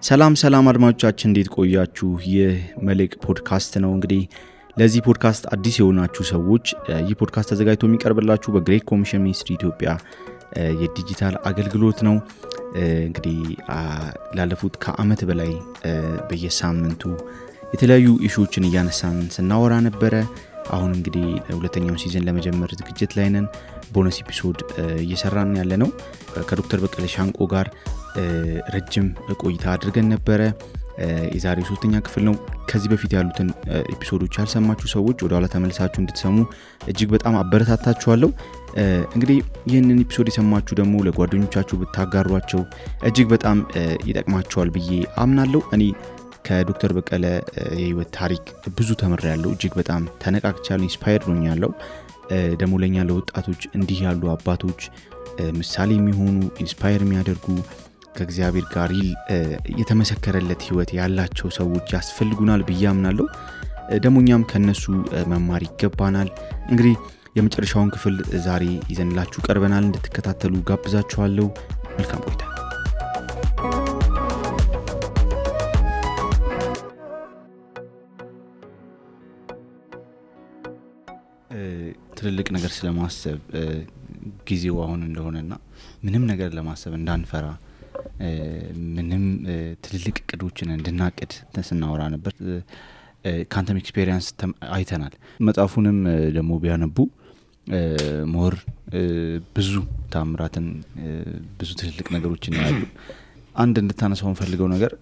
ሰላም አድማጮቻችን እንዴት ቆያችሁ? ይህ መልሕቅ ፖድካስት ነው። እንግዲህ ለዚህ ፖድካስት አዲስ የሆናችሁ ሰዎች ይህ ፖድካስት ተዘጋጅቶ የሚቀርብላችሁ በግሬት ኮሚሽን ሚኒስትሪ ኢትዮጵያ የዲጂታል አገልግሎት ነው። እንግዲህ ላለፉት ከዓመት በላይ በየሳምንቱ የተለያዩ ኢሹዎችን እያነሳን ስናወራ ነበረ። አሁን እንግዲህ ሁለተኛውን ሲዝን ለመጀመር ዝግጅት ላይ ነን። ቦነስ ኤፒሶድ እየሰራን ያለነው ከዶክተር በቀለ ሻንቆ ጋር ረጅም ቆይታ አድርገን ነበረ። የዛሬው 3ኛ ክፍል ነው። ከዚህ በፊት ያሉትን ኤፒሶዶች ያልሰማችሁ ሰዎች ወደ ኋላ ተመልሳችሁ እንድትሰሙ እጅግ በጣም አበረታታችኋለሁ። እንግዲህ ይህንን ኤፒሶድ የሰማችሁ ደግሞ ለጓደኞቻችሁ ብታጋሯቸው እጅግ በጣም ይጠቅማቸዋል ብዬ አምናለሁ። እኔ ከዶክተር በቀለ የህይወት ታሪክ ብዙ ተምሬያለሁ። እጅግ በጣም ተነቃቅቻለሁ፣ ኢንስፓየርድ ሆኛለሁ። ደግሞ ለኛ ለወጣቶች እንዲህ ያሉ አባቶች ምሳሌ የሚሆኑ ኢንስፓየር የሚያደርጉ ከእግዚአብሔር ጋር የተመሰከረለት ህይወት ያላቸው ሰዎች ያስፈልጉናል ብዬ አምናለሁ። ደግሞ እኛም ከነሱ መማር ይገባናል። እንግዲህ የመጨረሻውን ክፍል ዛሬ ይዘንላችሁ ቀርበናል። እንድትከታተሉ ጋብዛችኋለሁ። መልካም ቆይታ። ትልልቅ ነገር ስለማሰብ ጊዜው አሁን እንደሆነና ምንም ነገር ለማሰብ እንዳንፈራ ምንም ትልልቅ እቅዶችን እንድናቅድ ተስናወራ ነበር። ካንተም ኤክስፒሪየንስ አይተናል። መጽሐፉንም ደግሞ ቢያነቡ ሞር ብዙ ታምራትን ብዙ ትልልቅ ነገሮችን ያሉ አንድ እንድታነሳው ፈልገው ነገር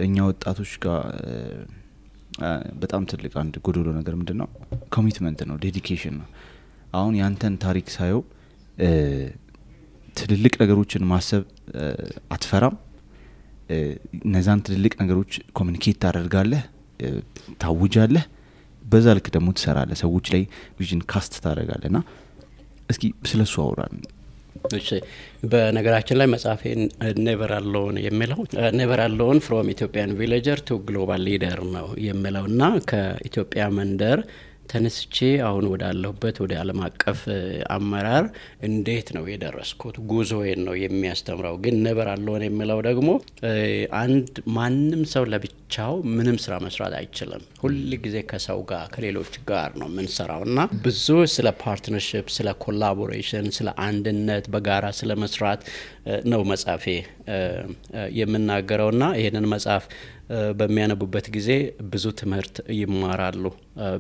እኛ ወጣቶች ጋር በጣም ትልቅ አንድ ጎዶሎ ነገር ምንድነው? ኮሚትመንት ነው፣ ዴዲኬሽን ነው። አሁን ያንተን ታሪክ ሳየው ትልልቅ ነገሮችን ማሰብ አትፈራም። እነዛን ትልልቅ ነገሮች ኮሙኒኬት ታደርጋለህ፣ ታውጃለህ፣ በዛ ልክ ደግሞ ትሰራለህ፣ ሰዎች ላይ ቪዥን ካስት ታደርጋለህና እስኪ ስለሱ አውራን። እሺ፣ በነገራችን ላይ መጽሐፌን ኔቨር አሎን የሚለው ኔቨር አሎን ፍሮም ኢትዮጵያን ቪሌጀር ቱ ግሎባል ሊደር ነው የሚለውና ከኢትዮጵያ መንደር ተነስቼ አሁን ወዳለሁበት ወደ ዓለም አቀፍ አመራር እንዴት ነው የደረስኩት ጉዞዬን ነው የሚያስተምረው። ግን ኔቨር አሎን የሚለው ደግሞ አንድ ማንም ሰው ለብቻው ምንም ስራ መስራት አይችልም። ሁል ጊዜ ከሰው ጋር ከሌሎች ጋር ነው የምንሰራውና ብዙ ስለ ፓርትነርሺፕ፣ ስለ ኮላቦሬሽን፣ ስለ አንድነት በጋራ ስለ መስራት ነው መጽሐፌ የምናገረውና ይሄንን መጽሐፍ በሚያነቡበት ጊዜ ብዙ ትምህርት ይማራሉ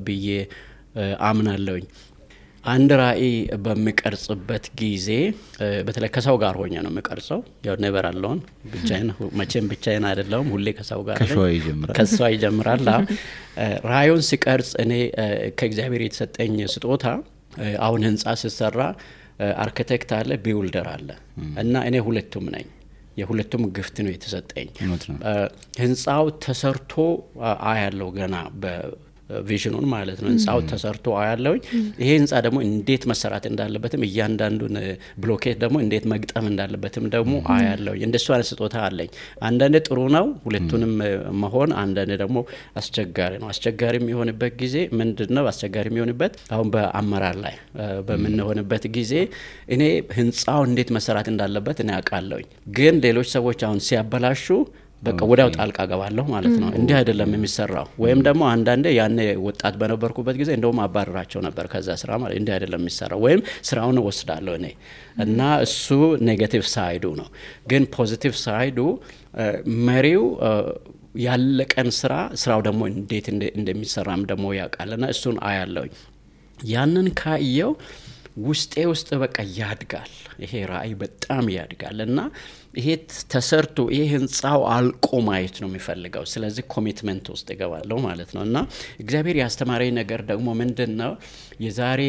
ብዬ አምናለሁኝ። አንድ ራዕይ በሚቀርጽበት ጊዜ በተለይ ከሰው ጋር ሆኜ ነው የሚቀርጸው። ያው ኔቨር አሎን ብቻዬን አይደለሁም፣ ሁሌ ከሰው ጋር ከሰው ይጀምራል። ራዕዩን ሲቀርጽ እኔ ከእግዚአብሔር የተሰጠኝ ስጦታ አሁን ህንጻ ሲሰራ አርኪቴክት አለ፣ ቢውልደር አለ እና እኔ ሁለቱም ነኝ። የሁለቱም ግፍት ነው የተሰጠኝ። ህንጻው ተሰርቶ አያለው ገና በቪዥኑን ማለት ነው። ህንጻው ተሰርቶ አያለው። ይሄ ህንጻ ደግሞ እንዴት መሰራት እንዳለበትም እያንዳንዱን ብሎኬት ደግሞ እንዴት መግጠም እንዳለበትም ደግሞ አያለው። እንደሱ አይነት ስጦታ አለኝ። አንዳንዴ ጥሩ ነው ሁለቱንም መሆን፣ አንዳንዴ ደግሞ አስቸጋሪ ነው። አስቸጋሪ የሚሆንበት ጊዜ ምንድነው? አስቸጋሪ የሚሆንበት አሁን በአመራር ላይ በመንሆንበት ጊዜ እኔ ህንጻው እንዴት መሰራት እንዳለበት እኔ አውቃለሁ። ግን ሌሎች ሰዎች አሁን ሲያበላሹ በቃ ወዳው ጣልቃ ገባለሁ ማለት ነው። እንዲህ አይደለም የሚሰራው። ወይም ደግሞ አንዳንዴ ያኔ ወጣት በነበርኩበት ጊዜ እንደውም አባረራቸው ነበር ከዛ ስራ ማለት እንዲህ አይደለም የሚሰራው፣ ወይም ስራውን ወስዳለሁ እኔ እና እሱ ኔጌቲቭ ሳይዱ ነው። ግን ፖዚቲቭ ሳይዱ መሪው ያለቀን ስራው ደግሞ እንዴት እንደሚሰራም ደግሞ ያውቃልና እሱን አያለሁ። ያንን ካየው ውስጥ በቃ ያድጋል። ይሄ ራዕይ በጣም ያድጋል እና ይሄ ተሰርቶ ይሄ ህንጻው አልቆ ማየት ነው የሚፈልገው። ስለዚህ ኮሚትመንት ውስጥ ይገባለሁ ማለት ነው። እና እግዚአብሔር ያስተማረኝ ነገር ደግሞ ምንድነው? የዛሬ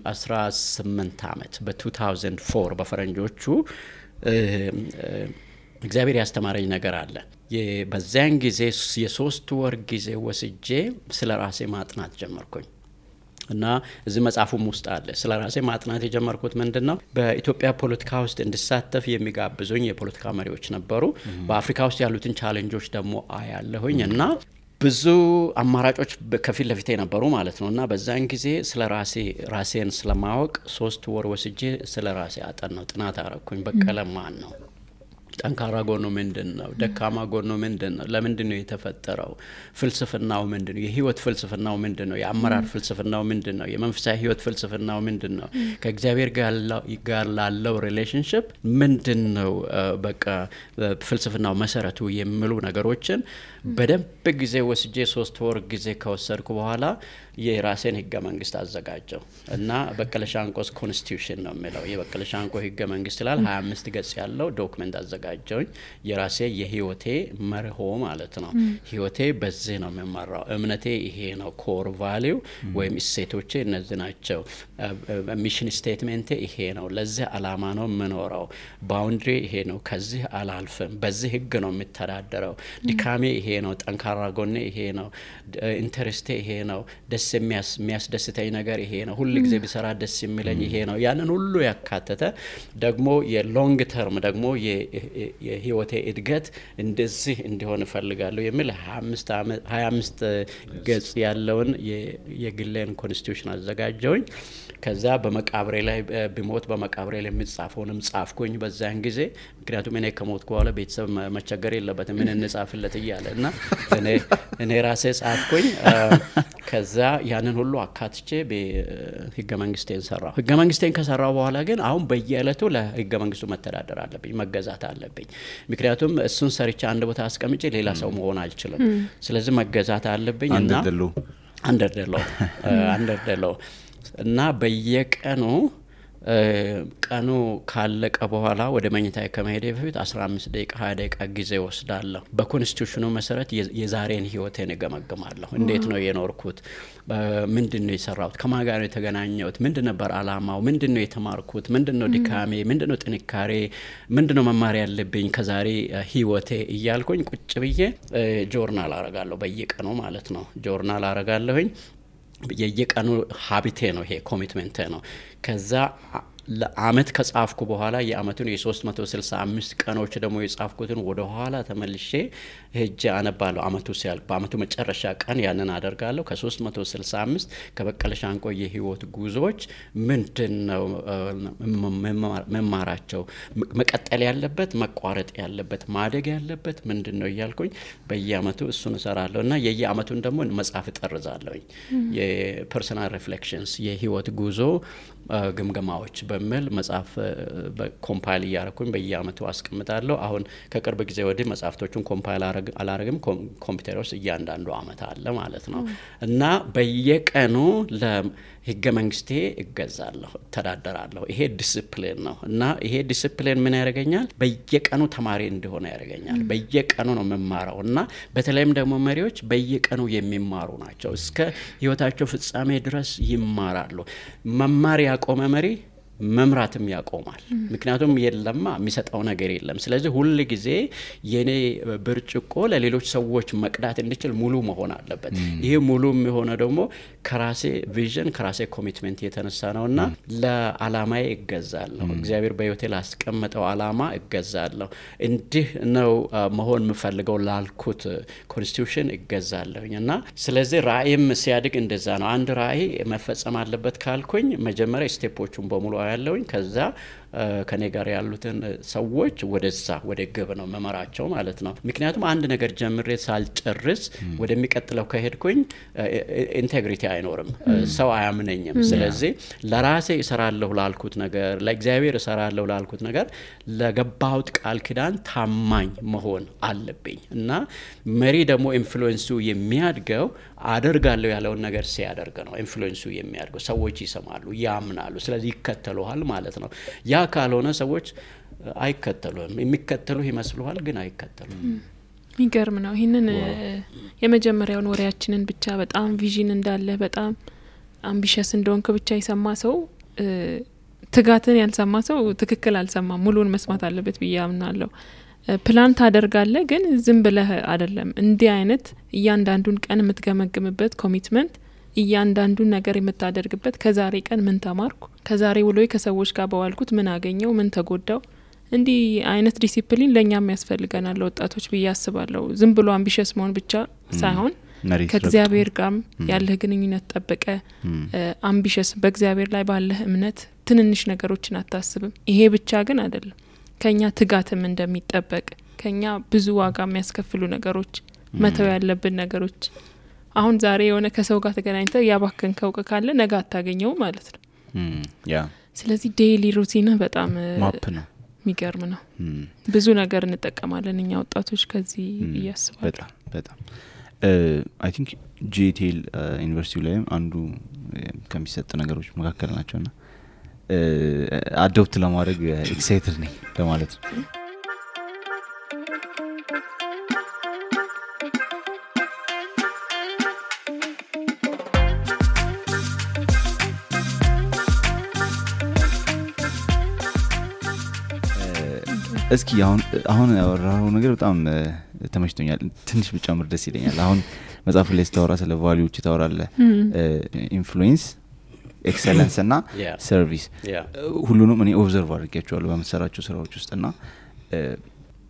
18 ዓመት በ2004 በፈረንጆቹ እግዚአብሔር ያስተማረኝ ነገር አለ። በዛን ጊዜ የ3 ወር ጊዜ ወስጄ ስለ ራሴ ማጥናት ጀመርኩኝ። እና እዚህ መጽሐፉም ውስጥ አለ። ስለ ራሴ ማጥናት የጀመርኩት ምንድነው? በኢትዮጵያ ፖለቲካ ውስጥ እንድሳተፍ የሚጋብዙኝ የፖለቲካ መሪዎች ነበሩ። በአፍሪካ ውስጥ ያሉትን ቻሌንጆች ደግሞ አያለሁኝ እና ብዙ አማራጮች ከፊት ለፊቴ ነበሩ ማለት ነው። እና በዛን ጊዜ ስለ ራሴን ስለማወቅ 3 ወር ወስጄ ስለ ራሴ አጠናው፣ ጥናት አረኩኝ። በቀለ ማን ነው? ጠንካራ ጎኑ ምንድነው? ደካማ ጎኑ ምንድነው? ለምንድነው የተፈጠረው? ፍልስፍናው ምንድነው? የህይወት ፍልስፍናው ምንድነው? የአመራር ፍልስፍናው ምንድነው? የመንፈሳዊ ህይወት ፍልስፍናው ምንድነው? ከእግዚአብሔር ጋር ላለው ሪሌሽንሺፕ ምንድነው በቃ ፍልስፍናው መሰረቱ የሚሉ ነገሮችን በደንብ ጊዜ ወስጄ 3 ወር ጊዜ ከወሰድኩ በኋላ የራሴን ህገ መንግስት አዘጋጀው እና በቀለ ሻንቆስ ኮንስቲቱሽን ነው የሚለው የበቀለ ሻንቆ ህገ መንግስት ይላል 25 ገጽ ያለው ዶክመንት አዘጋጀውኝ የራሴ የህይወቴ መርሆ ማለት ነው። ህይወቴ በዚህ ነው የሚመራው፣ እምነቴ ይሄ ነው፣ ኮር ቫልዩ ወይም እሴቶቼ እነዚህ ናቸው፣ ሚሽን ስቴትመንቴ ይሄ ነው፣ ለዚህ አላማ ነው የምኖረው፣ ባውንድሪ ይሄ ነው፣ ከዚህ አላልፍም፣ በዚህ ህግ ነው የምተዳደረው፣ ድካሜ ይሄ ነው፣ ጠንካራ ጎኔ ይሄ ነው፣ ኢንተረስቴ ይሄ ነው፣ ደስ የሚያስደስተኝ ነገር ይሄ ነው፣ ሁሉ ጊዜ ቢሰራ ደስ የሚለኝ ይሄ ነው። ያንን ሁሉ ያካተተ ደግሞ የሎንግ ተርም ደግሞ የህይወቴ እድገት እንደዚህ እንዲሆን እፈልጋለሁ የሚል 25 ገጽ ያለውን የግሌን ኮንስቲቱሽን አዘጋጀውኝ። ከዛ በመቃብሬ ላይ ቢሞት በመቃብሬ ላይ የሚጻፈውንም ጻፍኩኝ በዛን ጊዜ። ምክንያቱም እኔ ከሞትኩ በኋላ ቤተሰብ መቸገር የለበትም ምን እንጻፍለት እያለ እና እኔ ራሴ ጻፍኩኝ። ከዛ ያንን ሁሉ አካትቼ በህገ መንግስቴን ሰራው። ህገ መንግስቴን ከሰራው በኋላ ግን አሁን በየዕለቱ ለህገ መንግስቱ መተዳደር አለብኝ፣ መገዛት አለብኝ። ምክንያቱም እሱን ሰርቼ አንድ ቦታ አስቀምጬ ሌላ ሰው መሆን አልችልም። ስለዚህ መገዛት አለብኝ እና አንደርደለው እና በየቀኑ ቀኑ ካለቀ በኋላ ወደ መኝታዬ ከመሄዴ በፊት 15 ደቂቃ 20 ደቂቃ ጊዜ ወስዳለሁ። በኮንስቲቱሽኑ መሰረት የዛሬን ህይወቴን እገመግማለሁ። እንዴት ነው የኖርኩት? ምንድነው የሰራሁት? ከማን ጋር ነው የተገናኘሁት? ምንድነው ነበር አላማው? ምንድነው የተማርኩት? ምንድነው ድካሜ? ምንድነው ጥንካሬ? ምንድነው መማር ያለብኝ ከዛሬ ህይወቴ እያልኩኝ ቁጭ ብዬ ጆርናል አረጋለሁ። በየቀኑ ማለት ነው ጆርናል አረጋለሁኝ። የየቀኑ ሀቢቴ ነው ይሄ፣ ኮሚትመንቴ ነው። ከዛ ለአመት ከጻፍኩ በኋላ የአመቱን የ365 ቀኖች ደግሞ የጻፍኩትን ወደ ኋላ ተመልሼ ሄጄ አነባለሁ። አመቱ ሲያልቅ በአመቱ መጨረሻ ቀን ያንን አደርጋለሁ። ከ365 ከበቀለ ሻንቆ የህይወት ጉዞዎች ምንድነው መማራቸው፣ መቀጠል ያለበት፣ መቋረጥ ያለበት፣ ማደግ ያለበት ምንድነው እያልኩኝ በየአመቱ እሱን እሰራለሁ እና የየአመቱን ደግሞ መጽሐፍ እጠርዛለሁኝ። የፐርሰናል ሪፍሌክሽንስ የህይወት ጉዞ ግምገማዎች በሚል መጽሐፍ ኮምፓይል እያረኩኝ በየአመቱ አስቀምጣለሁ። አሁን ከቅርብ ጊዜ ወዲህ መጽሐፍቶቹን ኮምፓይል አላረግም፣ ኮምፒውተር ውስጥ እያንዳንዱ አመት አለ ማለት ነው እና በየቀኑ ለህገ መንግስቴ እገዛለሁ፣ ተዳደራለሁ። ይሄ ዲሲፕሊን ነው እና ይሄ ዲሲፕሊን ምን ያደርገኛል? በየቀኑ ተማሪ እንደሆነ ያደርገኛል። በየቀኑ ነው መማራው እና በተለይም ደግሞ መሪዎች በየቀኑ የሚማሩ ናቸው። እስከ ህይወታቸው ፍጻሜ ድረስ ይማራሉ። መማር ያቆመ መሪ መምራትም ያቆማል። ምክንያቱም የለማ የሚሰጠው ነገር የለም። ስለዚህ ሁሉ ጊዜ የኔ ብርጭቆ ለሌሎች ሰዎች መቅዳት እንዲችል ሙሉ መሆን አለበት። ይሄ ሙሉ የሚሆነው ደግሞ ከራሴ ቪዥን ከራሴ ኮሚትመንት የተነሳ ነውና ለዓላማዬ እገዛለሁ። እግዚአብሔር በህይወቴ ላስቀመጠው ዓላማ እገዛለሁ። እንዲህ ነው መሆን የምፈልገው ላልኩት ኮንስቲቱሽን እገዛለሁና ስለዚህ ራእይም ሲያድግ እንደዛ ነው። አንድ ራእይ መፈጸም አለበት ካልኩኝ መጀመሪያ ስቴፖቹን በሙሉ ያለውኝ ከዛ ከኔ ጋር ያሉትን ሰዎች ወደዛ ወደ ግብ ነው መመራቸው ማለት ነው። ምክንያቱም አንድ ነገር ጀምሬ ሳልጨርስ ወደሚቀጥለው ከሄድኩኝ ኢንቴግሪቲ አይኖርም፣ ሰው አያምነኝም። ስለዚህ ለራሴ እሰራለሁ ላልኩት ነገር፣ ለእግዚአብሔር እሰራለሁ ላልኩት ነገር ለገባሁት ቃል ኪዳን ታማኝ መሆን አለብኝ እና መሪ ደግሞ ኢንፍሉዌንሱ የሚያድገው አደርጋለሁ ያለውን ነገር ሲያደርግ ነው። ኢንፍሉዌንሱ የሚያድገው ሰዎች ይሰማሉ፣ ያምናሉ፣ ስለዚህ ይከተሉሃል ማለት ነው። ያ ካልሆነ ሰዎች አይከተሉም። የሚከተሉ ይመስሉሃል ግን አይከተሉም። የሚገርም ነው። ይሄንን የመጀመሪያውን ወሬያችንን ብቻ በጣም ቪዥን እንዳለ በጣም አምቢሽስ እንደሆንክ ብቻ የሰማ ሰው ትጋትን ያልሰማ ሰው ትክክል አልሰማም። ሙሉን መስማት አለበት ብዬ አምናለሁ። ፕላን ታደርጋለህ ግን ዝም ብለህ አይደለም። እንዲህ አይነት እያንዳንዱን ቀን የምትገመግምበት ኮሚትመንት፣ እያንዳንዱን ነገር የምታደርግበት ከዛሬ ቀን ምን ተማርኩ፣ ከዛሬ ውሎዬ ከሰዎች ጋር በዋልኩት ምን አገኘው፣ ምን ተጎዳው፣ እንዲህ አይነት ዲሲፕሊን ለኛም ያስፈልገናል ወጣቶች ብዬ አስባለሁ። ዝም ብሎ አምቢሽስ መሆን ብቻ ሳይሆን ከእግዚአብሔር ጋር ያለህ ግንኙነት ጠብቀ አምቢሽስ በእግዚአብሔር ላይ ባለህ እምነት ትንንሽ ነገሮችን አታስብም። ይሄ ብቻ ግን አይደለም። ከኛ ትጋትም እንደሚጠበቅ ከኛ ብዙ ዋጋ የሚያስከፍሉ ነገሮች መተው ያለብን ነገሮች አሁን ዛሬ የሆነ ከሰው ጋር ተገናኝተህ ያባከንከው ካለ ነገ አታገኘው ማለት ነው ያ ስለዚህ ዴይሊ ሩቲን በጣም ማፕ ነው የሚገርም ነው ብዙ ነገር እንጠቀማለን እኛ ወጣቶች ከዚህ ያስባል በጣም I think JTL ዩኒቨርሲቲ ላይ አንዱ ከሚሰጥ ነገሮች መካከል ናቸውና አዶፕት ለማድረግ ኤክሳይትድ ነኝ ለማለት ነው እስኪ አሁን ያወራው ነገር በጣም ተመችቶኛል ትንሽ ብጨምር ደስ ይለኛል አሁን መጽሐፍ ላይ ስታወራ ስለ ቫልዩዎች ታወራለ ኢንፍሉዌንስ ኤክሰለንስ እና ሰርቪስ ሁሉንም እኔ ኦብዘርቭ አድርጌያቸዋለሁ በመሰራቸው ስራዎች ውስጥና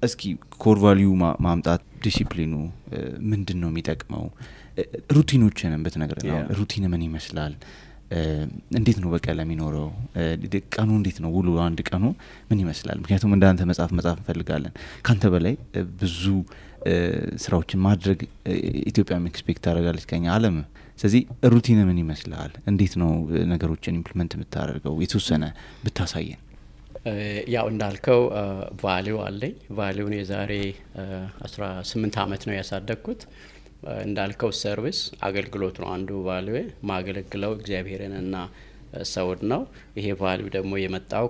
እስኪ ኮር ቫልዩ ማምጣት ዲሲፕሊኑ ምንድነው የሚጠቅመው ሩቲኖችንም በተነገረና ሩቲን ምን ይመስላል እንዴት ነው በቀላ የሚኖረው ቀኑ እንዴት ነው ውሎ አንድ ቀኑ ምን ይመስላል ምክንያቱም እንዳንተ መጽሐፍ እንፈልጋለን ካንተ በላይ ብዙ ስራዎችን ማድረግ ኢትዮጵያ ኤክስፔክት ታደርጋለች ከኛ ዓለም ስለዚህ ሩቲን ምን ይመስላል እንዴት ነው ነገሮችን ኢምፕሊመንት የምታደርገው የተወሰነ ብታሳየን ያው እንዳልከው ቫልዩ አለኝ ቫልዩን የዛሬ 18 አመት ነው ያሳደግኩት እንዳልከው ሰርቪስ አገልግሎት ነው አንዱ ቫልዩ ማገለግለው እግዚአብሔርንና ሰውን ነው ይሄ ቫልዩ ደግሞ የመጣው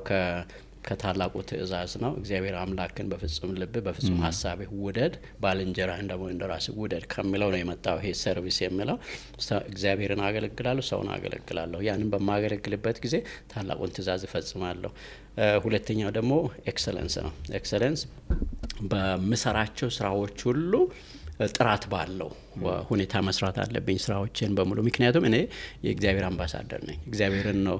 ከታላቁ ትእዛዝ ነው እግዚአብሔር አምላክን በፍጹም ልብ በፍጹም ሐሳብ ውደድ ባልንጀራህን ደግሞ እንደራስህ ውደድ ከሚለው ነው የመጣው ይሄ ሰርቪስ የሚለው እግዚአብሔርን አገለግላለሁ ሰውን አገለግላለሁ ያንን በማገለግልበት ጊዜ ታላቁን ትእዛዝ እፈጽማለሁ ሁለተኛው ደግሞ ኤክሰለንስ ነው ኤክሰለንስ በመሰራቸው ስራዎች ሁሉ ጥራት ባለው ሁኔታ መስራት አለብኝ ስራዎችን በሙሉ ምክንያቱም እኔ የእግዚአብሔር አምባሳደር ነኝ እግዚአብሔርን ነው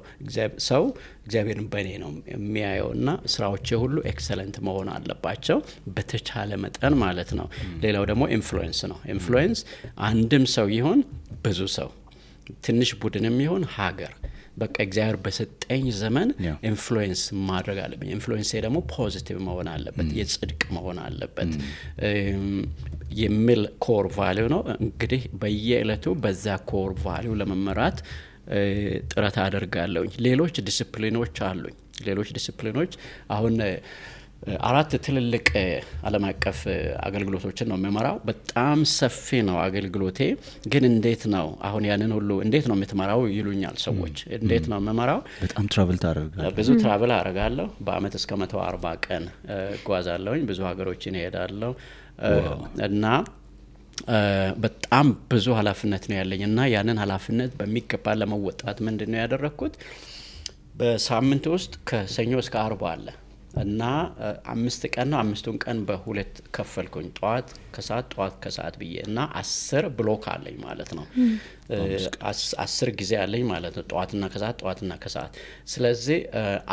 ሰው እግዚአብሔርን በእኔ ነው የሚያየውና ስራዎቼ ሁሉ ኤክሰለንት መሆን አለባቸው በተቻለ መጠን ማለት ነው ሌላው ደግሞ ኢንፍሉዌንስ ነው ኢንፍሉዌንስ አንድም ሰው ይሁን ብዙ ሰው ትንሽ ቡድንም ይሁን ሀገር በቃ እግዚአብሔር በሰጠኝ ዘመን ኢንፍሉዌንስ ማድረግ አለብኝ ኢንፍሉዌንስ ደግሞ ፖዚቲቭ መሆን አለበት የጽድቅ መሆን አለበት የሚል ኮር ቫልዩ ነው እንግዲህ በየዕለቱ በዛ ኮር ቫልዩ ለመመራት ጥረት አደርጋለሁ ሌሎች ዲሲፕሊኖች አሉኝ ሌሎች ዲሲፕሊኖች አሁን አራት ትልልቅ ዓለም አቀፍ አገልግሎቶችን ነው የምመራው በጣም ሰፊ ነው አገልግሎቴ ግን እንዴት ነው አሁን ያንን ሁሉ እንዴት ነው የምትመራው ይሉኛል ሰዎች እንዴት ነው የምመራው በጣም ትራቨል ታደርጋለህ ብዙ ትራቨል አደርጋለሁ በአመት እስከ 140 ቀን ጓዛለሁኝ ብዙ ሀገሮችን እሄዳለሁ እና በጣም ብዙ ኃላፊነት ነው ያለኝ እና ያንን ኃላፊነት በሚገባ ለመወጣት ምንድነው ያደረኩት በሳምንት ውስጥ ከሰኞ እስከ አርብ አለ እና 5 ቀን ነው 5ቱን ቀን በሁለት ከፈልኩኝ ጧት ከሰዓት ብዬ እና 10 ብሎክ አለኝ ማለት ነው 10 ጊዜ አለኝ ማለት ነው ጧትና ከሰዓት ስለዚህ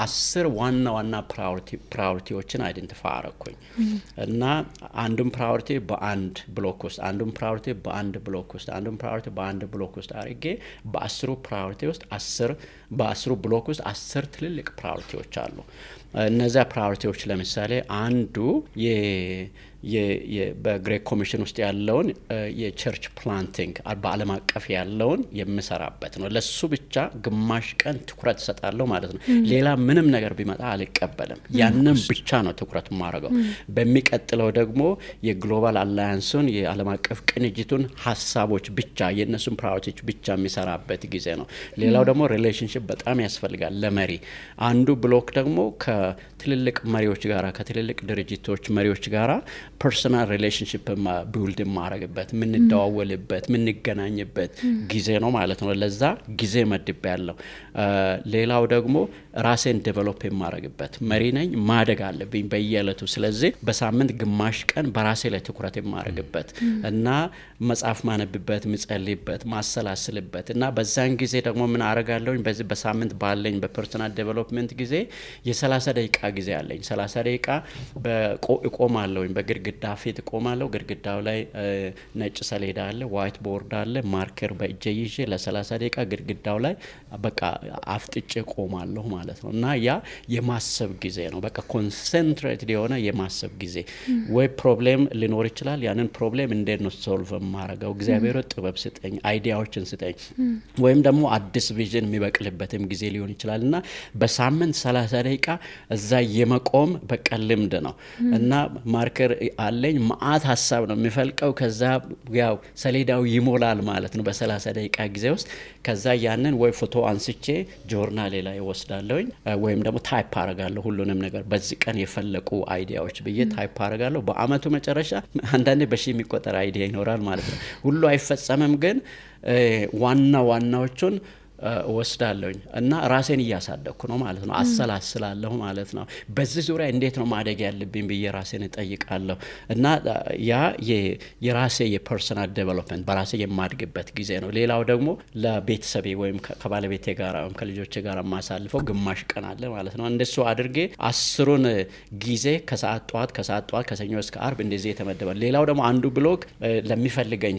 10 ዋና ፕራዮሪቲዎችን አይደንቲፋይ አረኩኝ እና አንዱን ፕራዮሪቲ በአንድ ብሎክ ውስጥ አንዱን ፕራዮሪቲ በአንድ ብሎክ ውስጥ አንዱን ፕራዮሪቲ በአንድ ብሎክ ውስጥ አርጌ በ10 ፕራዮሪቲ ውስጥ 10 በ10 ብሎክ ውስጥ 10 ትልልቅ ፕራዮሪቲዎች አሉ እነዛ ፕራዮሪቲዎች ለምሳሌ አንዱ በግሬት ኮሚሽን ውስጥ ያለውን የቸርች ፕላንቲንግ በዓለም አቀፍ ያለውን የምሰራበት ነው ለሱ ብቻ ግማሽ ቀን ትኩረት ሰጣለሁ ማለት ነው ሌላ ምንም ነገር ቢመጣ አልቀበልም ያንን ብቻ ነው ትኩረት ማረጋው በሚቀጥለው ደግሞ የግሎባል አላያንሱን የዓለም አቀፍ ቅንጅቱን ሐሳቦች ብቻ የነሱን ፕራዮሪቲዎች ብቻ የሚሰራበት ጊዜ ነው ሌላው ደግሞ ሪሌሽንሺፕ በጣም ያስፈልጋል ለመሪ አንዱ ብሎክ ደግሞ ከትልልቅ መሪዎች ጋራ ከትልልቅ ድርጅቶች መሪዎች ጋራ ፐርሰናል ሪሌሽንሺፕ ቢልድ ማረግበት ምንደዋወልበት ምንገናኝበት ጊዜ ነው ማለት ነው ለዛ ጊዜ መድብ ያለው ሌላው ደግሞ ራሴን ዴቨሎፕ ማረግበት መሪ ነኝ ማደግ አለብኝ በየዕለቱ ስለዚህ በሳምንት ግማሽ ቀን በራሴ ላይ ትኩረት ማረግበት እና መጽሐፍ ማነብበት ምጸልይበት ማሰላስልበት እና በዛን ጊዜ ደግሞ ምን አረጋለሁኝ በዚህ በሳምንት ባለኝ በፐርሰናል ዴቨሎፕመንት ጊዜ የ30 ደቂቃ ጊዜ አለኝ 30 ደቂቃ በቆማለሁኝ በግድግዳ ግድግዳ ፊት ቆማለሁ። ግድግዳው ላይ ነጭ ሰሌዳ አለ፣ ዋይት ቦርድ አለ። ማርከር በእጄ ይዤ ለ30 ደቂቃ ግድግዳው ላይ በቃ አፍጥጬ ቆማለሁ ማለት ነው። እና ያ የማሰብ ጊዜ ነው። በቃ ኮንሰንትሬትድ የሆነ የማሰብ ጊዜ። ወይ ፕሮብሌም ሊኖር ይችላል። ያንን ፕሮብሌም እንዴት ነው ሶልቭ ማረጋው? እግዚአብሔር ጥበብ ስጠኝ፣ አይዲያዎችን ስጠኝ። ወይም ደግሞ አዲስ ቪዥን የሚበቅልበትም ጊዜ ሊሆን ይችላል። እና በሳምንት 30 ደቂቃ እዛ የመቆም በቃ ልምድ ነው። እና ማርከር አለኝ፣ ማአት ሀሳብ ነው የሚፈልቀው። ከዛ ያው ሰሌዳው ይሞላል ማለት ነው በ30 ደቂቃ ጊዜ ውስጥ። ከዛ ያንን ወይ ፎቶ አንስቼ ጆርናሌ ላይ ወስዳለሁኝ፣ ወይም ደግሞ ታይፕ አረጋለሁ ሁሉንም ነገር በዚህ ቀን የፈለቁ አይዲያዎች ብዬ ታይፕ አረጋለሁ። በአመቱ መጨረሻ አንዳንዴ በሺ የሚቆጠር አይዲያ ይኖራል ማለት ነው። ሁሉ አይፈጸምም፣ ግን ዋናዎቹን ወስዳለሁኝ እና ራሴን እያሳደኩ ነው ማለት ነው። አሰላስላለሁ ማለት ነው። በዚህ ዙሪያ እንዴት ነው ማደግ ያለብኝ ብዬ ራሴን እጠይቃለሁ። እና ያ የራሴ የፐርሰናል ዴቨሎፕመንት በራሴ የማድግበት ጊዜ ነው። ሌላው ደግሞ ለቤተሰቤ ወይም ከባለቤቴ ጋር ወይም ከልጆቼ ጋር ማሳልፈው ግማሽ ቀን አለ ማለት ነው። እንደሱ አድርጌ 10ሩን ጊዜ ከሰዓት ጠዋት ከሰኞ እስከ አርብ እንደዚህ የተመደበ። ሌላው ደግሞ አንዱ ብሎግ ለሚፈልገኝ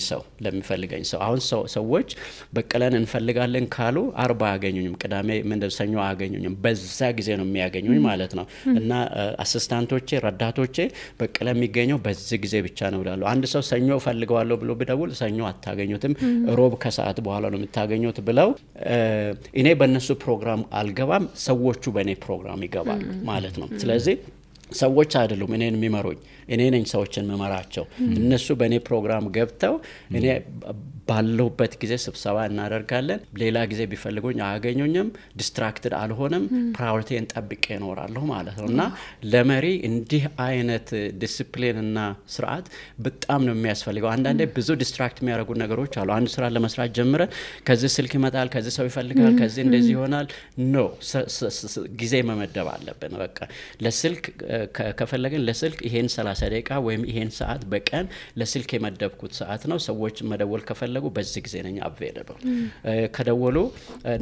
ሰው አሁን ሰዎች በቀለን እንፈልጋለን ካሉ አርባ አያገኙኝም፣ ቅዳሜ ሰኞ አያገኙኝም። በዛ ጊዜ ነው የሚያገኙኝ ማለት ነው። እና አሲስታንቶቼ ረዳቶቼ በቀለ የሚገኘው በዚህ ጊዜ ብቻ ነው ይላሉ። አንድ ሰው ሰኞ ፈልገዋለሁ ብሎ ቢደውል ሰኞ አታገኙትም፣ ሮብ ከሰዓት በኋላ ነው የምታገኙት ብለው እኔ በእነሱ ፕሮግራም አልገባም፣ ሰዎቹ በእኔ ፕሮግራም ይገባሉ ማለት ነው። ስለዚህ ሰዎች አይደሉም እኔን የሚመሩኝ፣ እኔ ነኝ ሰዎችን መመራቸው። እነሱ በእኔ ፕሮግራም ገብተው እኔ ባለሁበት ጊዜ ስብሰባ እናደርጋለን። ሌላ ጊዜ ቢፈልጉኝ አያገኙኝም፣ ዲስትራክትድ አልሆንም፣ ፕራዮሪቲን ጠብቄ እኖራለሁ ማለት ነው። እና ለመሪ እንዲህ አይነት ዲሲፕሊን እና ስርዓት በጣም ነው የሚያስፈልገው። አንዳንዴ ብዙ ዲስትራክት የሚያደርጉ ነገሮች አሉ። አንድ ስራ ለመስራት ጀምረን ከዚህ ስልክ ይመጣል፣ ከዚህ ሰው ይፈልጋል፣ ከዚህ እንደዚህ ይሆናል። ኖ ጊዜ መመደብ አለብን። በቃ ለስልክ ከፈለግን ለስልክ ይሄን 30 ደቂቃ ወይም ይሄን ሰዓት በቀን ለስልክ የመደብኩት ሰዓት ነው። ሰዎች መደወል ከፈለጉ በዚህ ጊዜ ነኝ አቬለብል። ከደወሉ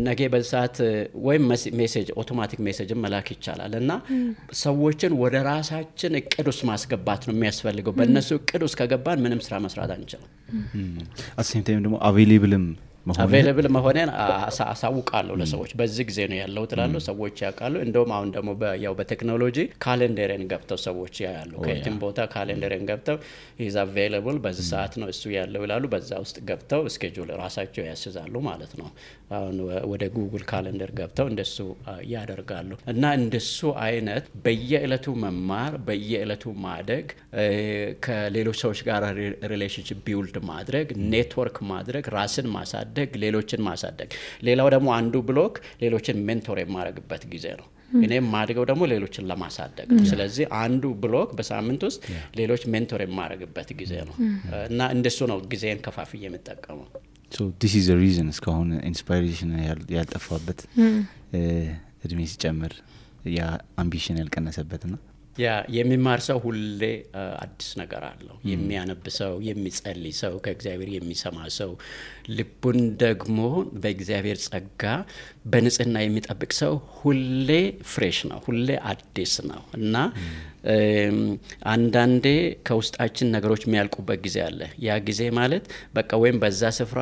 ነገ በሰዓት ወይም ሜሴጅ አውቶማቲክ ሜሴጅ መላክ ይቻላል። እና ሰዎችን ወደ ራሳችን እቅድ ውስጥ ማስገባት ነው የሚያስፈልገው። በእነሱ እቅድ ውስጥ ከገባን ምንም ስራ መስራት አንችልም። አሰም ታይም ደግሞ አቬሌብል መሆኔን አሳውቃለሁ ለሰዎች። በዚህ ጊዜ ነው ያለው ትላለሁ፣ ሰዎች ያውቃሉ። እንደውም አሁን ደግሞ ያው በቴክኖሎጂ ካሌንደርን ገብተው ሰዎች ያያሉ። ከየትም ቦታ ካሌንደርን ገብተው is available በዚህ ሰዓት ነው እሱ ያለው ይላሉ። በዛ ውስጥ ገብተው ስኬጁል ራሳቸው ያስይዛሉ ማለት ነው። አሁን ወደ ጉግል ካሌንደር ገብተው እንደሱ ያደርጋሉ። እና እንደሱ አይነት በየዕለቱ መማር፣ በየዕለቱ ማደግ፣ ከሌሎች ሰዎች ጋር ሪሌሽንሺፕ ቢልድ ማድረግ፣ ኔትወርክ ማድረግ፣ ራስን ማሳደግ፣ ሌሎችን ማሳደግ። ሌላው ደግሞ አንዱ ብሎክ ሌሎችን ሜንቶር የማረግበት ጊዜ ነው። እኔም ማድገው ደግሞ ሌሎችን ለማሳደግ ነው። ስለዚህ አንዱ ብሎክ በሳምንት ውስጥ ሌሎች ሜንቶር የማረግበት ጊዜ ነው። እና እንደሱ ነው ጊዜን ከፋፍዬ የምጠቀመው። So this is the reason እስካሁን ኢንስፓይሬሽን ያልጠፋበት እድሜ ሲጨምር ያ አምቢሽን ያልቀነሰበትና ያ የሚማር ሰው ሁሌ አዲስ ነገር አለው። የሚያነብ ሰው፣ የሚጸልይ ሰው፣ ከእግዚአብሔር የሚሰማ ሰው፣ ልቡን ደግሞ በእግዚአብሔር ጸጋ በንጽህና የሚጠብቅ ሰው ሁሌ ፍሬሽ ነው፣ ሁሌ አዲስ ነው። እና አንዳንዴ ከውስጣችን ነገሮች የሚያልቁበት ጊዜ አለ። ያ ጊዜ ማለት በቃ ወይም በዛ ስፍራ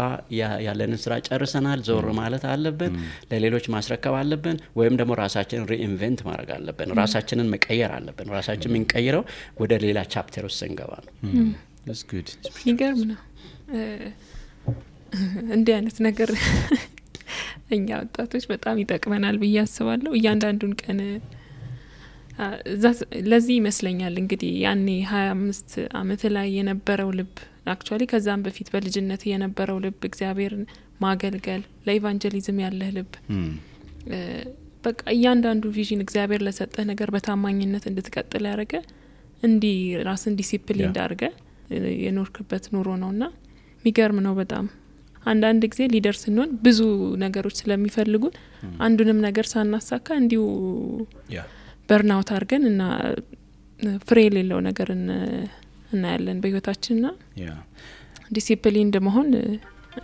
ያለንን ስራ ጨርሰናል፣ ዞር ማለት አለብን፣ ለሌሎች ማስረከብ አለብን፣ ወይም ደግሞ ራሳችንን ሪኢንቨንት ማድረግ አለብን፣ ራሳችንን መቀየር አለብን። ራሳችን የምንቀይረው ወደ ሌላ ቻፕተር ውስጥ ስንገባ ነው። That's good. ይገርም ነው እንዲህ አይነት ነገር እኛ ወጣቶች በጣም ይጠቅመናል ብዬ አስባለሁ። እያንዳንዱን ቀን ለዚህ ይመስለኛል እንግዲህ ያኔ 25 አመት ላይ የነበረው ልብ አክቹአሊ ከዛም በፊት በልጅነት የነበረው ልብ እግዚአብሔርን ማገልገል ለኢቫንጀሊዝም ያለህ ልብ በቃ እያንዳንዱ ቪዥን እግዚአብሔር ለሰጠህ ነገር በታማኝነት እንድትቀጥል ያደረገ እንዲ ራስን ዲሲፕሊን እንዳርገ የኖርክበት ኑሮ ነውና የሚገርም ነው በጣም። አንዳንድ ጊዜ ሊደር ስንሆን ብዙ ነገሮች ስለሚፈልጉን አንዱንም ነገር ሳናሳካ እንዲሁ በርናውት አርገን እና ፍሬ የሌለው ነገር እናያለን በህይወታችንና ዲሲፕሊን እንደመሆን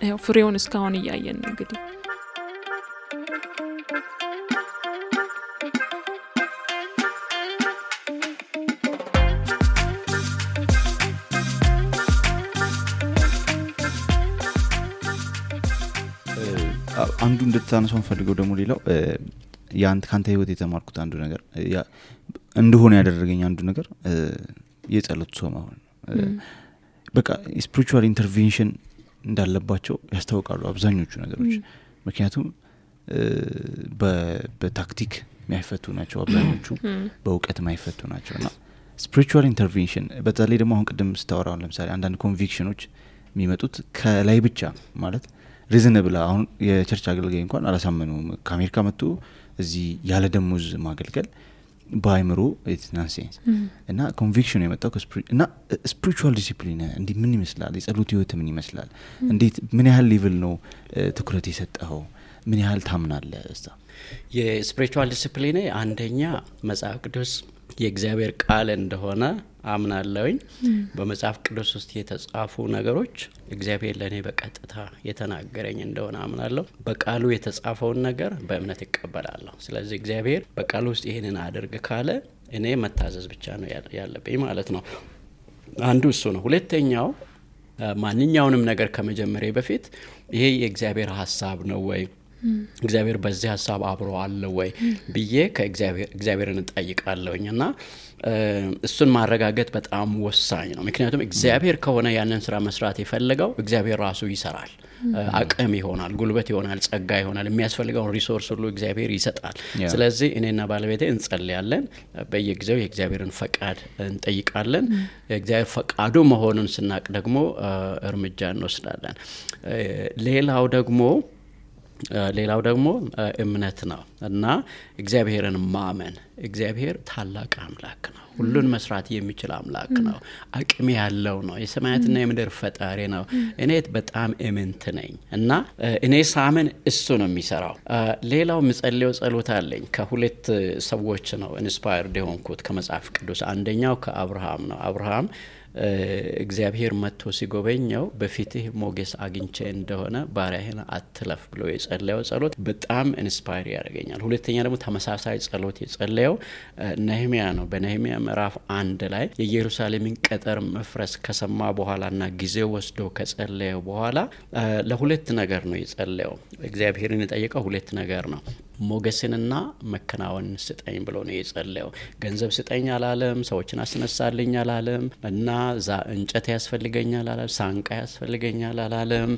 ያው ፍሬውን እስካሁን እያየን ነው እንግዲህ። አንዱ እንድታነሳው ፈልገው ደግሞ ሌላው ካንተ ህይወት የተማርኩት አንዱ ነገር እንደሆነ ያደረገኝ አንዱ ነገር የጸሎት ሰው መሆን በቃ ስፒሪቹዋል ኢንተርቬንሽን እንዳለባቸው ያስታውቃሉ አብዛኞቹ ነገሮች ምክንያቱም በታክቲክ ማይፈቱ ናቸው አብዛኞቹ በእውቀት ማይፈቱ ናቸውና ስፒሪቹዋል ኢንተርቬንሽን በተለይ ደግሞ አሁን ቅድም ስታወራው ለምሳሌ አንዳንድ ኮንቪክሽኖች የሚመጡት ከላይ ብቻ ማለት ሪዝነብል አሁን የቸርች አገልጋይ እንኳን አላሳመኑም ከአሜሪካ መጥቶ እዚህ ያለ ደሞዝ ማገልገል ባይምሮ ኢትስ ናንሴንስ እና ኮንቪክሽን የመጣው እና ስፒሪቹዋል ዲሲፕሊን እንዴ ምን ይመስላል የጸሎት ህይወት ምን ይመስላል እንዴት ምን ያህል ሌቭል ነው ትኩረት የሰጠው ምን ያህል ታምናለህ እስታ የስፒሪቹዋል ዲሲፕሊን አንደኛ መጽሐፍ ቅዱስ የእግዚአብሔር ቃል እንደሆነ አምናለሁኝ በመጽሐፍ ቅዱስ ውስጥ የተጻፉ ነገሮች እግዚአብሔር ለኔ በቀጥታ የተናገረኝ እንደሆነ አምናለሁ በቃሉ የተጻፈውን ነገር በእምነት እቀበላለሁ ስለዚህ እግዚአብሔር በቃሉ ውስጥ ይሄንን አድርግ ካለ እኔ መታዘዝ ብቻ ነው ያለብኝ ማለት ነው አንዱ እሱ ነው ሁለተኛው ማንኛውንም ነገር ከመጀመሪያ በፊት ይሄ የእግዚአብሔር ሐሳብ ነው ወይ እግዚአብሔር በዚህ ሐሳብ አብሮ አለ ወይ ብዬ ከእግዚአብሔርን ጠይቃለሁኝና እሱን ማረጋገጥ በጣም ወሳኝ ነው ምክንያቱም እግዚአብሔር ከሆነ ያንን ስራ መስራት የፈለገው እግዚአብሔር ራሱ ይሰራል አቅም ይሆናል ጉልበት ይሆናል ጸጋ ይሆናል የሚያስፈልገው ሪሶርስ ሁሉ እግዚአብሔር ይሰጣል ስለዚህ እኔና ባለቤቴ እንጸልያለን በየጊዜው የእግዚአብሔርን ፈቃድ እንጠይቃለን የእግዚአብሔር ፈቃዱ መሆኑን ስናቅ ደግሞ እርምጃ እንወስዳለን ሌላው ደግሞ እምነት ነው እና እግዚአብሔርን ማመን እግዚአብሔር ታላቅ አምላክ ነው ሁሉን መስራት የሚችል አምላክ ነው አቅም ያለው ነው የሰማያትና የምድር ፈጣሪ ነው እኔ በጣም እምንት ነኝ እና እኔ ሳመን እሱ ነው የሚሰራው ሌላው ምጸልየው ጸሎት አለኝ ከሁለት ሰዎች ነው ኢንስፓየርድ የሆንኩት ከመጽሐፍ ቅዱስ አንደኛው ከአብርሃም ነው አብርሃም እግዚአብሔር መጥቶ ሲጎበኘው በፊትህ ሞገስ አግኝቼ እንደሆነ ባሪያህን አትለፍ ብሎ የጸለየው ጸሎት በጣም ኢንስፓየር ያደርገኛል ሁለተኛ ደግሞ ተመሳሳይ ጸሎት የጸለየው ነህምያ ነው በነህምያ ምዕራፍ 1 ላይ የኢየሩሳሌምን ቅጥር መፍረስ ከሰማ በኋላና ጊዜው ወስዶ ከጸለየው በኋላ ለሁለት ነገር ነው የጸለየው እግዚአብሔርን የጠየቀው ሁለት ነገር ነው ሞገስንና መከናወን ስጠኝ ብሎ ነው የጸለየው ገንዘብ ስጠኝ አላለም ሰዎችን አስነሳልኝ አላለም እና እንጨት ያስፈልገኛል አላለም ሳንቃ ያስፈልገኛል አላለም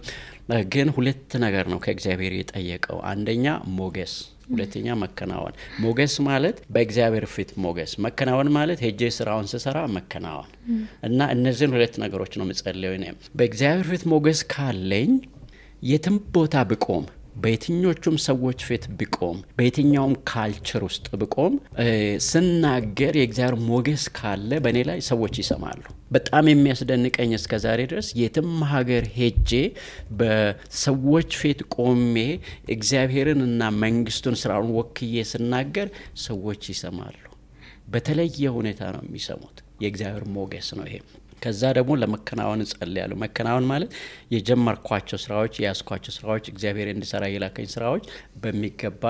ግን ሁለት ነገር ነው ከእግዚአብሔር የጠየቀው አንደኛ ሞገስ ሁለተኛ መከናወን ሞገስ ማለት በእግዚአብሔር ፊት ሞገስ መከናወን ማለት ሄጄ ስራውን ስሰራ መከናወን እና እነዚህን ሁለት ነገሮች ነው የምጸልየው እኔ በእግዚአብሔር ፊት ሞገስ ካለኝ የትም ቦታ ብቆም በየትኞቹም ሰዎች ፊት ብቆም በየትኛውም ካልቸር ውስጥ ብቆም ስናገር የእግዚአብሔር ሞገስ ካለ በእኔ ላይ ሰዎች ይሰማሉ በጣም የሚያስደንቀኝ እስከዛሬ ድረስ የትም ሀገር ሄጄ በሰዎች ፊት ቆሜ እግዚአብሔርን እና መንግስቱን ስራውን ወክዬ ስናገር ሰዎች ይሰማሉ በተለየ ሁኔታ ነው የሚሰሙት የእግዚአብሔር ሞገስ ነው ይሄ ከዛ ደግሞ ለመከናወን ጸልያለሁ መከናወን ማለት የጀመርኳቸው ስራዎች ያስኳቸው ስራዎች እግዚአብሔር እንዲሰራ የላከኝ ስራዎች በሚገባ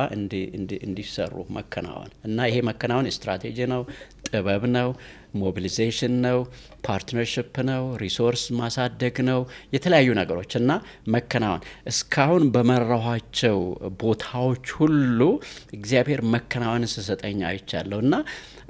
እንዲሰሩ መከናወን እና ይሄ መከናወን ስትራቴጂ ነው ጥበብ ነው ሞቢላይዜሽን ነው ፓርትነርሺፕ ነው ሪሶርስ ማሳደግ ነው የተለያዩ ነገሮች እና መከናወን እስካሁን በመራኋቸው ቦታዎች ሁሉ እግዚአብሔር መከናወን ሲሰጠኝ አይቻለሁና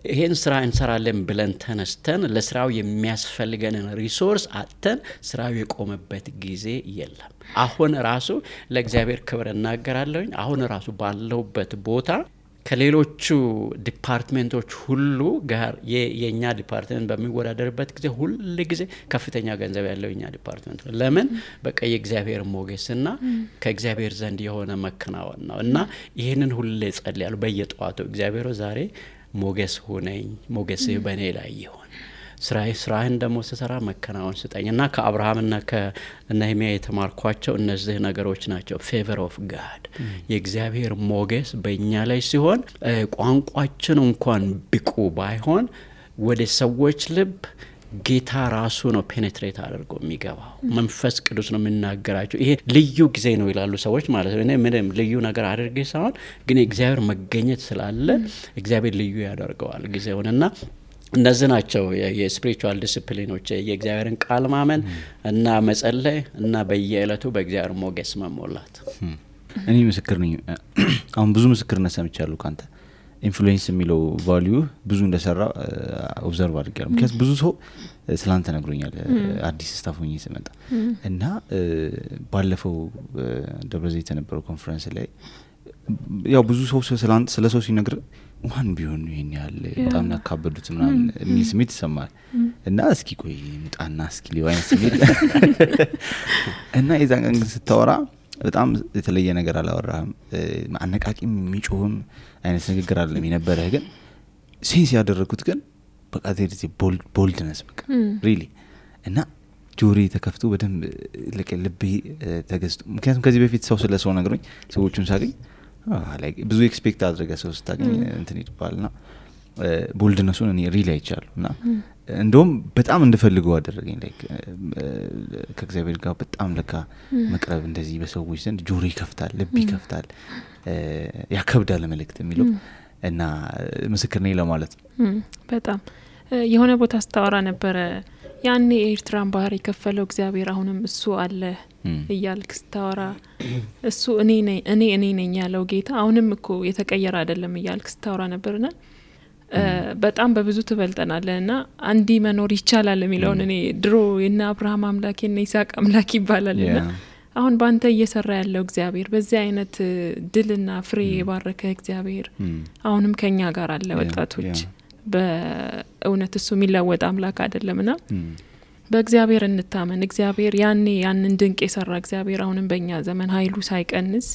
ይሄን ስራ እንሰራለን ብለን ተነስተን ለስራው የሚያስፈልገንን ሪሶርስ አጥተን ስራው የቆመበት ጊዜ የለም አሁን ራሱ ለእግዚአብሔር ክብር እናገራለሁኝ አሁን ራሱ ባለውበት ቦታ ከሌሎቹ ዲፓርትመንቶች ሁሉ ጋር የኛ ዲፓርትመንት በሚወዳደርበት ጊዜ ሁሉ ጊዜ ከፍተኛ ገንዘብ ያለው የኛ ዲፓርትመንት ለምን በቃ የእግዚአብሔር ሞገስና ከእግዚአብሔር ዘንድ የሆነ መከናወን ነው እና ይሄንን ሁሉ ጸልያለሁ በየጧቱ እግዚአብሔር ዛሬ ሞገስ ሆነኝ ሞገስህ በእኔ ላይ ይሁን ስራህን ደግሞ ስሰራ መከናወን ስጠኝና ከአብርሃምና ከነህምያ የተማርኳቸው እነዚህ ነገሮች ናቸው ፌቨር ኦፍ ጋድ የእግዚአብሔር ሞገስ በእኛ ላይ ሲሆን ቋንቋችን እንኳን ብቁ ባይሆን ወደ ሰዎች ልብ ጌታ ራሱ ነው ፔኔትሬት አድርጎ የሚገባው መንፈስ ቅዱስ ነው የሚናገራቸው ይሄ ልዩ ጊዜ ነው ይላሉ ሰዎች ማለት ነው እኔ ምንም ልዩ ነገር አድርጌ ሳይሆን ግን እግዚአብሔር መገኘት ስላለ እግዚአብሔር ልዩ ያደርገዋል ጊዜውንና እነዚህ ናቸው የስፒሪቹዋል ዲሲፕሊኖች የእግዚአብሔርን ቃል ማመን እና መጸለይ እና በየዕለቱ በእግዚአብሔር ሞገስ መሞላት እኔ ምስክር ነኝ አሁን ብዙ ምስክርነት ሰምቻለሁ ካንተ ኢንፍሉዌንስ የሚለው ቫልዩ ብዙ እንደሰራ ኦብዘርቭ አድርጌያለሁ ምክንያቱም ብዙ ሰው ስላንተ ነግሮኛል አዲስ ስታፍ ሆኜ ስመጣ እና ባለፈው ደብረዘይት የነበረው ኮንፈረንስ ላይ ያው ብዙ ሰው ስለ ሰው ሲነግር ማን ቢሆን ይሄን ያህል በጣም ያካበዱት ምናምን የሚል ስሜት ይሰማል እና እስኪ ቆይ ምጣና እስኪ ሊዋይን ስሜት እና የዛን ቀን ስታወራ በጣም የተለየ ነገር አላወራህም አነቃቂም የሚጮህም አይነት ንግግር አይደለም የነበረህ ግን ሴንስ ያደረኩት ግን በቃ ዘዴ ቦልድነስ በቃ ሪሊ እና ጆሪ ተከፍቶ በደንብ ልቤ ተገዝቶ ምክንያቱም ከዚህ በፊት ሰው ስለ ሰው ነግሮኝ ሰዎቹን ሳገኝ like ብዙ ኤክስፔክት አድርገህ ሰው ስታገኝ እንትን ይባልና ቦልድነሱን እኔ ሪሊ አይቻለሁና እንደውም በጣም እንድፈልገው አደረገኝ like ከእግዚአብሔር ጋር በጣም ለካ መቅረብ እንደዚህ በሰዎች ዘንድ ጆሪ ይከፍታል ልብ ይከፍታል ያከብዳል መልእክት የሚለው እና ምስክር ነኝ ለማለት በጣም የሆነ ቦታ ስታወራ ነበር ያኔ ኤርትራን ባህር የከፈለው እግዚአብሔር አሁንም እሱ አለ እያልክ ስታወራ እሱ እኔ ነኝ ያለው ጌታ አሁንም እኮ የተቀየረ አይደለም እያልክ ስታወራ ነበርና በጣም በብዙ ትበልጠናልና አንዲ መኖር ይቻላል የሚለውን እኔ ድሮ እና አብርሃም አምላክ እና ይስሐቅ አምላክ ይባላልና አሁን ባንተ እየሰራ ያለው እግዚአብሔር በዚህ አይነት ድልና ፍሬ የባረከ እግዚአብሔር አሁንም ከኛ ጋር አለ ወጣቶች በእውነት እሱ የሚለወጥ አምላክ አይደለምና በእግዚአብሔር እንታመን እግዚአብሔር ያንን ድንቅ የሰራ እግዚአብሔር አሁንም በእኛ ዘመን ኃይሉ ሳይቀንስ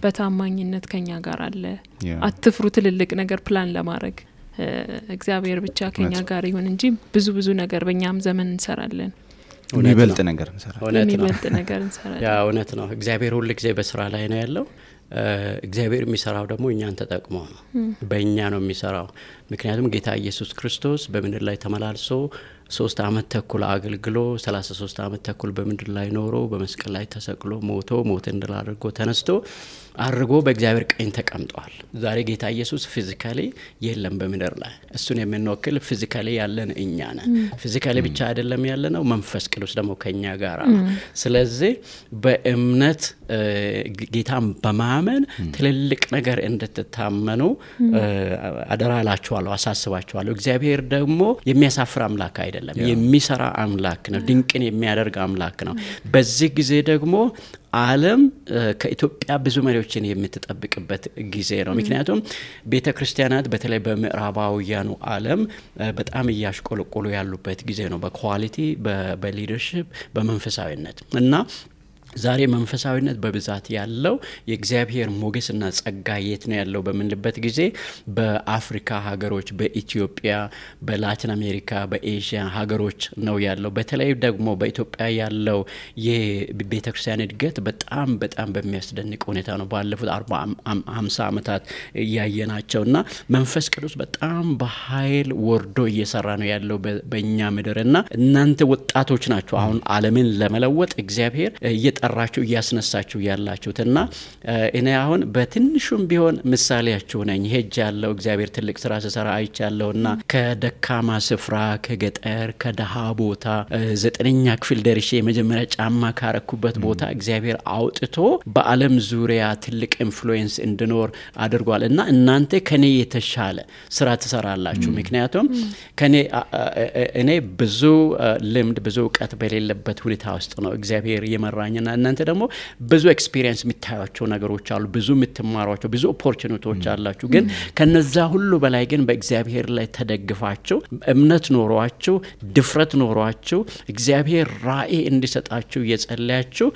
በታማኝነት ከኛ ጋር አለ አትፍሩ ትልልቅ ነገር ፕላን ለማድረግ እግዚአብሔር ብቻ ከኛ ጋር ይሁን እንጂ ብዙ ነገር በእኛም ዘመን እንሰራለን የሚበልጥ ነገር እንሰራለን ያ እውነት ነው እግዚአብሔር ሁሉ ጊዜ በስራ ላይ ነው ያለው እግዚአብሔር የሚሰራው ደግሞ እኛን ተጠቅሞ ነው በእኛ ነው የሚሰራው ምክንያቱም ጌታ ኢየሱስ ክርስቶስ በምድር ላይ ተመላልሶ 3 አመት ተኩል አገልግሎ 33 አመት ተኩል በምድር ላይ ኖሮ በመስቀል ላይ ተሰቅሎ ሞት እንደላደርጎ ተነስቶ አርጎ በእግዚአብሔር ቀኝ ተቀምጧል ዛሬ ጌታ ኢየሱስ ፊዚካሊ የለም በምድር ላይ እሱን የምንወክል ፊዚካሊ ያለን እኛ ነን ፊዚካሊ ብቻ አይደለም ያለነው መንፈስ ቅዱስ ደግሞ ከኛ ጋር ስለዚህ በእምነት ጌታን በማመን ትልልቅ ነገር እንድትታመኑ አደራላችኋለሁ አሳስባችኋለሁ እግዚአብሔር ደግሞ የሚያሳፍር አምላክ አይደለም የሚሰራ አምላክ ነው ድንቅን የሚያደርግ አምላክ ነው በዚህ ጊዜ ደግሞ ዓለም ከኢትዮጵያ ብዙ መሪዎችን የምትጠብቅበት ጊዜ ነው ምክንያቱም ቤተክርስቲያናት በተለይ በምዕራባውያኑ ዓለም በጣም እያሽቆለቆሉ ያሉበት ጊዜ ነው በኳሊቲ በሊደርሺፕ በመንፈሳዊነት እና ዛሬ መንፈሳዊነት በብዛት ያለው የእግዚአብሔር ሞገስና ጸጋ የት ነው ያለው በመንልበት ጊዜ በአፍሪካ ሀገሮች በኢትዮጵያ በላቲን አሜሪካ በኤዥያ ሀገሮች ነው ያለው በተለይ ደግሞ በኢትዮጵያ ያለው የቤተክርስቲያን እድገት በጣም በሚያስደንቅ ሁኔታ ነው ባለፉት 40-50 አመታት ያየናቸውና መንፈስ ቅዱስ በጣም በኃይል ወርዶ እየሰራ ነው ያለው በእኛ ምድርና እናንተ ወጣቶች ናችሁ አሁን ዓለምን ለመለወጥ እግዚአብሔር እየጠራችሁ እያስነሳችሁ ያላችሁትና እኔ አሁን በትንሹም ቢሆን ምሳሌያችሁ ነኝ ሄጃለሁ እግዚአብሔር ትልቅ ስራ ሲሰራ አይቻለሁና ከደካማ ስፍራ ከገጠር ከደሃ ቦታ 9ኛ ክፍል ደርሼ የመጀመሪያ ጫማ ካረኩበት ቦታ እግዚአብሔር አውጥቶ በዓለም ዙሪያ ትልቅ ኢንፍሉዌንስ እንድኖር አድርጓልና እናንተ ከኔ የተሻለ ስራ ትሰራላችሁ ምክንያቱም እኔ ብዙ ልምድ ብዙ ዕውቀት በሌለበት ሁኔታ ውስጥ ነው እግዚአብሔር የመራኝና እናንተ ደግሞ ብዙ ኤክስፒሪየንስ የምታዩቸው ነገሮች አሉ ብዙ የምትማሯቸው ብዙ ኦፖርቹኒቲዎች አላችሁ ግን ከነዛ ሁሉ በላይ ግን በእግዚአብሔር ላይ ተደግፋችሁ እምነት ኖሯችሁ ድፍረት ኖሯችሁ እግዚአብሔር ራእይ እንዲሰጣችሁ እየጸለያችሁ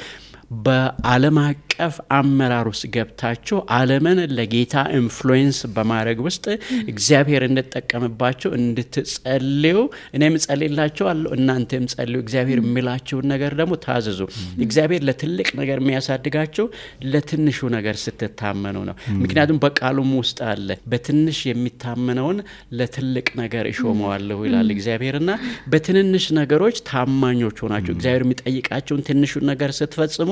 በዓለም አቀፍ አመራር ውስጥ ገብታችሁ ዓለምን ለጌታ ኢንፍሉዌንስ በማድረግ ውስጥ እግዚአብሔር እንድትጠቀምባችሁ እንድትጸልዩ እኔም ጸልይላችኋለሁ እናንተም ጸልዩ እግዚአብሔር የሚላችሁ ነገር ደግሞ ታዘዙ እግዚአብሔር ለትልቅ ነገር የሚያሳድጋችሁ ለትንሹ ነገር ስትታመኑ ነው ምክንያቱም በቃሉም ውስጥ አለ በትንሽ የሚታመነውን ለትልቅ ነገር ይሾመዋለሁ ይላል እግዚአብሔርና በትንንሽ ነገሮች ታማኞች ሆናችሁ እግዚአብሔር የሚጠይቃችሁን ትንሹ ነገር ስትፈጽሙ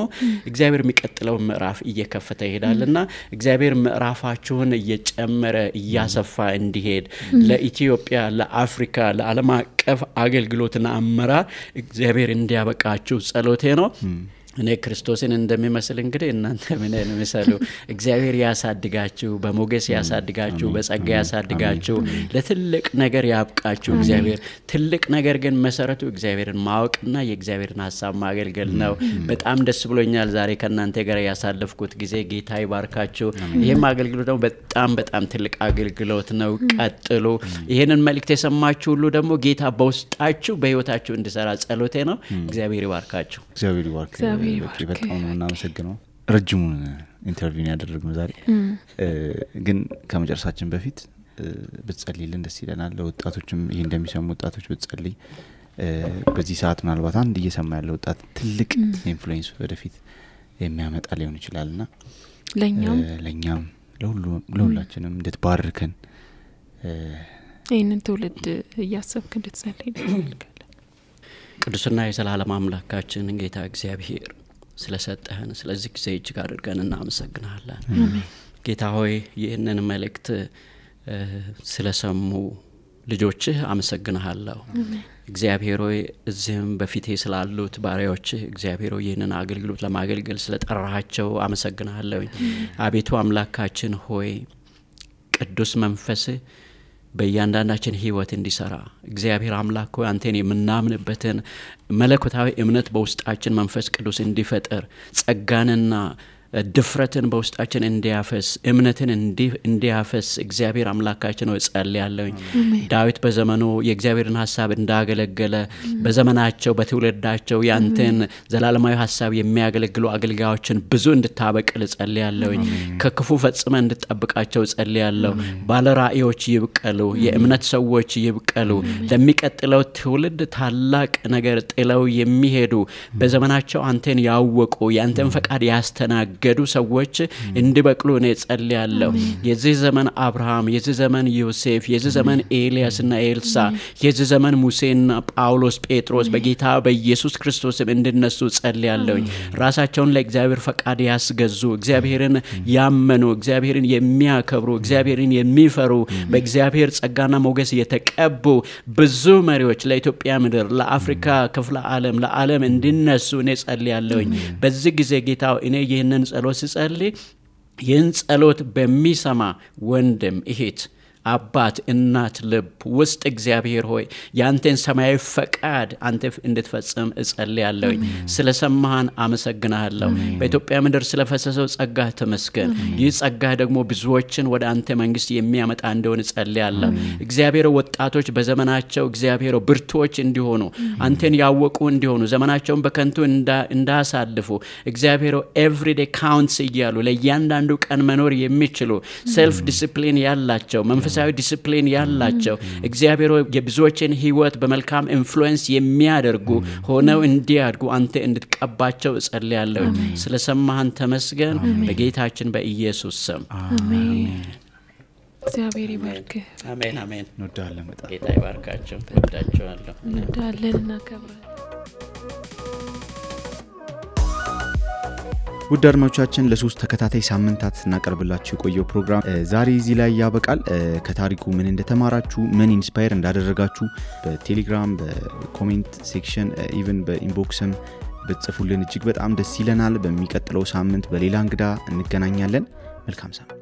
እግዚአብሔር የሚቀጥለው ምዕራፍ እየከፈተ ይሄዳልና እግዚአብሔር ምዕራፋችሁን እየጨመረ እያሰፋ እንዲሄድ ለኢትዮጵያ ለአፍሪካ ለዓለም አቀፍ አገልግሎትና አመራር እግዚአብሔር እንዲያበቃችሁ ጸሎቴ ነው እኔ ክርስቶስን እንደሚመስል እንግዲህ እናንተ ምን እንደምሰሉ እግዚአብሔር ያሳድጋችሁ በሞገስ ያሳድጋችሁ በጸጋ ያሳድጋችሁ ለትልቅ ነገር ያብቃችሁ እግዚአብሔር ትልቅ ነገር ግን መሰረቱ እግዚአብሔርን ማወቅና የእግዚአብሔርን ሐሳብ ማገልገል ነው በጣም ደስ ብሎኛል ዛሬ ከናንተ ጋር ያሳለፍኩት ጊዜ ጌታ ይባርካችሁ ይሄም አገልግሎት ደግሞ በጣም ትልቅ አገልግሎት ነው ቀጥሉ ይሄንን መልእክት የሰማችሁ ሁሉ ደግሞ ጌታ በውስጣችሁ በህይወታችሁ እንዲሰራ ጸሎቴ ነው እግዚአብሔር ይባርካችሁ እግዚአብሔር ይባርክ በጣም ነው እናመሰግነው ረጅሙን ኢንተርቪው ያደረግነው ዛሬ ግን ከመጨረሳችን በፊት ብትጸልይልን ደስ ይለናል ለወጣቶችም ይሄ እንደሚሰሙ ወጣቶች ብትጸልይ በዚህ ሰዓት ምናልባት አንድ እየሰማ ያለው ወጣት ትልቅ ኢንፍሉዌንስ ወደፊት የሚያመጣ ሊሆን ይችላልና ለኛም ለሁላችንም እንድትባርከን ይሄንን ትውልድ እያሰብክ እንድትጸልይ እንፈልጋለን ቅዱስና የዘላለም አምላካችን ጌታ እግዚአብሔር ስለሰጠህን ስለዚህ ጊዜ እጅግ አድርገን እናመሰግናለን ጌታ ሆይ ይህንን መልእክት ስለሰሙ ልጆችህ አመሰግናለሁ እግዚአብሔር ሆይ እዚህም በፊቴ ስላሉት ባሪያዎችህ እግዚአብሔር ሆይ ይህንን አገልግሎት ለማገልገል ስለጠራሃቸው አመሰግናለሁ አቤቱ አምላካችን ሆይ ቅዱስ መንፈስህ በእያንዳንዳችን ህይወት እንዲሰራ እግዚአብሔር አምላክ ሆይ አንተን የምናምንበትን መለኮታዊ እምነት በውስጣችን መንፈስ ቅዱስ እንዲፈጠር ጸጋንና ድፍረትን በውስጣችን እንዲያፈስ እምነትን እንዲያፈስ እግዚአብሔር አምላካችን ሆይ ጸልያለሁ ዳዊት በዘመኑ የእግዚአብሔርን ሐሳብ እንዳገለገለ በዘመናቸው በትውልዳቸው ያንተን ዘላለማዊ ሐሳብ የሚያገለግሉ አገልጋዮችን ብዙ እንድታበቅል ጸልያለሁ ከክፉ ፈጽመ እንድትጠብቃቸው ጸልያለሁ ባለራእዮች ይብቀሉ የእምነት ሰዎች ይብቀሉ ለሚቀጥለው ትውልድ ታላቅ ነገር ጥለው የሚሄዱ በዘመናቸው አንተን ያወቁ ያንተን ፈቃድ ያስተናገዱ ገዱ ሰዎች እንዲበቅሉ እኔ ጸልያለሁ የዚህ ዘመን አብርሃም የዚህ ዘመን ዮሴፍ የዚህ ዘመን ኤልያስና ኤልሳ የዚህ ዘመን ሙሴና ጳውሎስ ጴጥሮስ በጌታ በኢየሱስ ክርስቶስም እንድነሱ ጸልያለሁ ራሳቸውን ለእግዚአብሔር ፈቃድ ያስገዙ እግዚአብሔርን ያመኑ እግዚአብሔርን የሚያከብሩ እግዚአብሔርን የሚፈሩ በእግዚአብሔር ጸጋና ሞገስ የተቀቡ ብዙ መሪዎች ለኢትዮጵያ ምድር ለአፍሪካ ክፍለ ዓለም እንድነሱ እኔ ጸልያለሁ በዚህ ጊዜ ጌታ እኔ ይህንን ጸሎት ሲጸልይ ይህን ጸሎት በሚሰማ ወንድም እህት አባት እናት ልብ ውስጥ እግዚአብሔር ሆይ ያንተን ሰማያዊ ፈቃድ አንተ እንድትፈጽም እጸልያለሁ ስለሰማህን አመሰግናለሁ በኢትዮጵያ ምድር ስለፈሰሰው ጸጋ ተመስገን ይህ ጸጋ ደግሞ ብዙዎችን ወደ አንተ መንግስት የሚያመጣ እንደሆነ እጸልያለሁ እግዚአብሔር ወጣቶች በዘመናቸው እግዚአብሔር ብርቱዎች እንዲሆኑ አንተን ያወቁ እንዲሆኑ ዘመናቸውን በከንቱ እንዳሳልፉ እግዚአብሔር ኤቭሪዴ ካውንትስ እያሉ ለእያንዳንዱ ቀን መኖር የሚችሉ ሴልፍ ዲሲፕሊን ያላቸው መንፈሳዊ ዲሲፕሊን ያላቸው እግዚአብሔር የብዙዎችን ህይወት በመልካም ኢንፍሉዌንስ የሚያደርጉ ሆነው እንዲያድጉ አንተ እንድትቀባቸው እጸልያለሁ ስለሰማህን ተመስገን በጌታችን በኢየሱስ ስም አሜን እግዚአብሔር ይባርክ አሜን አሜን እንወዳለን በጣም ጌታ ይባርካችሁ ወዳችኋለሁ እንወዳለንና ከብረን ውድ አድማጮቻችን ለሶስት ተከታታይ ሳምንታት እናቀርብላችሁ የቆየው ፕሮግራም ዛሬ እዚህ ላይ ያበቃል ከታሪኩ ምን እንደተማራችሁ ምን ኢንስፓየር እንዳደረጋችሁ በቴሌግራም በኮሜንት ሴክሽን ኢቭን በኢንቦክስም በጽፉልን እጅግ በጣም ደስ ይለናል በሚቀጥለው ሳምንት በሌላ እንግዳ እንገናኛለን መልካም ሳምንት